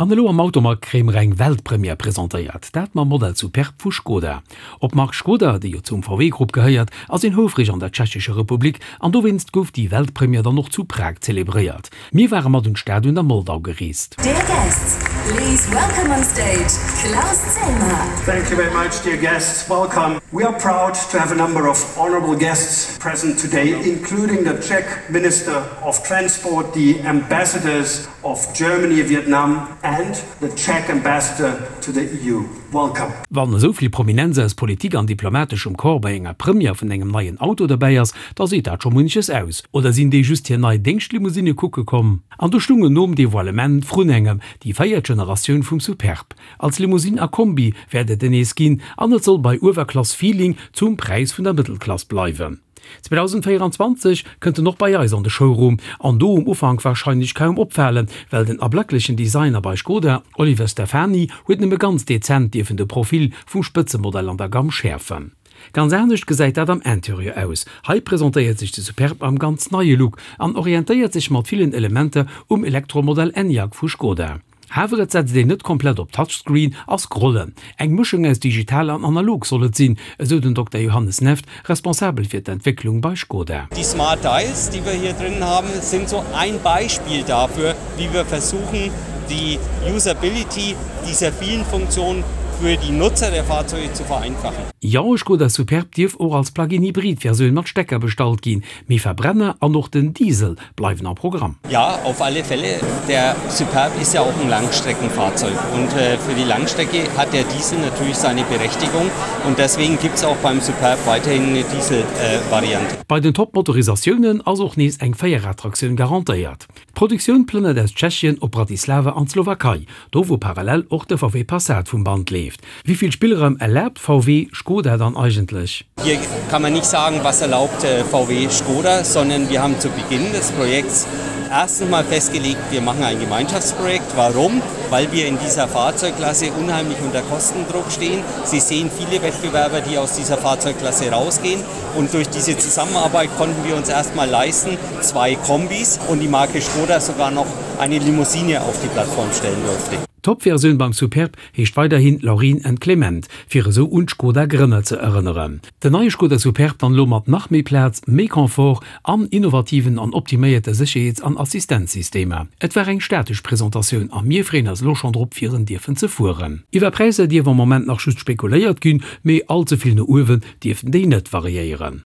An elo am Automag kréie mer eng Weltpremière presentéiert, dat mam Modell Superb vu Skoda. Op d'Mark Skoda, déi jo zum VW-Grupp gehéiert, ass een houfreg an der Tschechescher Republik an dowéinst gouf déi Weltpremière dann och zu Prag zelebréiert. Mir ware mat un d'Stad un der Moldau gereest. Dear guests, please welcome on stage Klaus Zellmer. Thank you very much, dear guests, welcome. We are proud to have a number of honorable guests present today, including the Czech Minister of Transport, the ambassadors of Germany, Vietnam and the Czech Ambassador to the EU. Welcome. Wann esou vill Prominenz aus Politik an diplomateschem Corps bei enger Première vun engem neien Auto derbäi ass, da seet dat scho munches aus. Oder sinn déi just hir nei Déngschtlimousine kucke komm? An do stungen nom Devoilement vrun engem déi véiert Generatioun vum Superb. Als Limousine a Kombi wäert et en nees ginn an et soll bei Uewerklass-Feeling zum Präis vun der Mëttelklass bleiwen. 2024 kënnt en och bei eis an de Showroom, an do um Ufank warscheinlech kaum opfalen, well den ablacklechen Designer bei Skoda, Oliver Stefani, huet nëmme ganz dezent dierfen de Profil vum Spëtzemodell an der Gamm schäerfen. Ganz anescht gesäit dat am Interieur aus. Hei presentéiert sech de Superb am ganz neie Look an orientéiert sech mat villen Elementer um Elektromodell Enyaq vu Skoda. Awer et setzt een net komplett op Touchscreen a Scrollen. Eng Mëschung aus digital an analog soll et sinn, esou den Dokter Johannes Neft, responsabel fir d'Entwécklung bei Skoda. Die Smart Dials, die wir hier drin haben, sind so ein Beispiel dafür, wie wir versuchen, die Usability dieser vielen Funktionen für die Nutzer der Fahrzeuge zu vereinfachen. Jo, e Skoda Superb dierf och als Plug-in-Hybrid-Versioun mat Stecker bestallt ginn, Mee Verbrenner an och den Diesel bleiwen am Programm. Ja, auf alle Fälle. Der Superb ist ja auch ein Langstreckenfahrzeug und für die Langstrecke hat der Diesel natürlich seine Berechtigung und deswegen gibt's auch beim Superb weiterhin eine Dieselvariante. Bei den Top-Motorisatiounen ass och nees eng Véierradtraktioun garantéiert. D'Produktioun plënnert aus Tschechien op Bratislava an d'Slowakei, do wou parallel och de VW Passat vum Band leeft. Wéi vill Spillraum erlaabt VW Skoda dann eigentlech? Hier kann man nicht sagen, was erlaubt VW Skoda, sondern wir haben zu Beginn des Projekts erstens mal festgelegt, wir machen ein Gemeinschaftsprojekt. Warum? Weil wir in dieser Fahrzeugklasse unheimlich unter Kostendruck stehen. Sie sehen viele Wettbewerber, die aus dieser Fahrzeugklasse rausgehen. Und durch diese Zusammenarbeit konnten wir uns erstmal leisten, zwei Kombis und die Marke Skoda sogar noch eine Limousine auf die Plattform stellen durfte. D'Topversioun beim Superb heescht weiderhin Laureen and Clement, fir esou un d'Skoda-Grënner ze erënneren. Den neie Skoda Superb dann elo mat nach méi Plaz, méi Confort an innovativen an optiméierte Sécherheets an Assistenzsystemer. Et war eng statesch Presentatioun a mir freeën eis elo schonn drop fir en dierfen ze fueren. Iwwer Präisser dierf am Moment nach just spekuléiert ginn, mee all ze vill no uewen dierften déi net variéieren.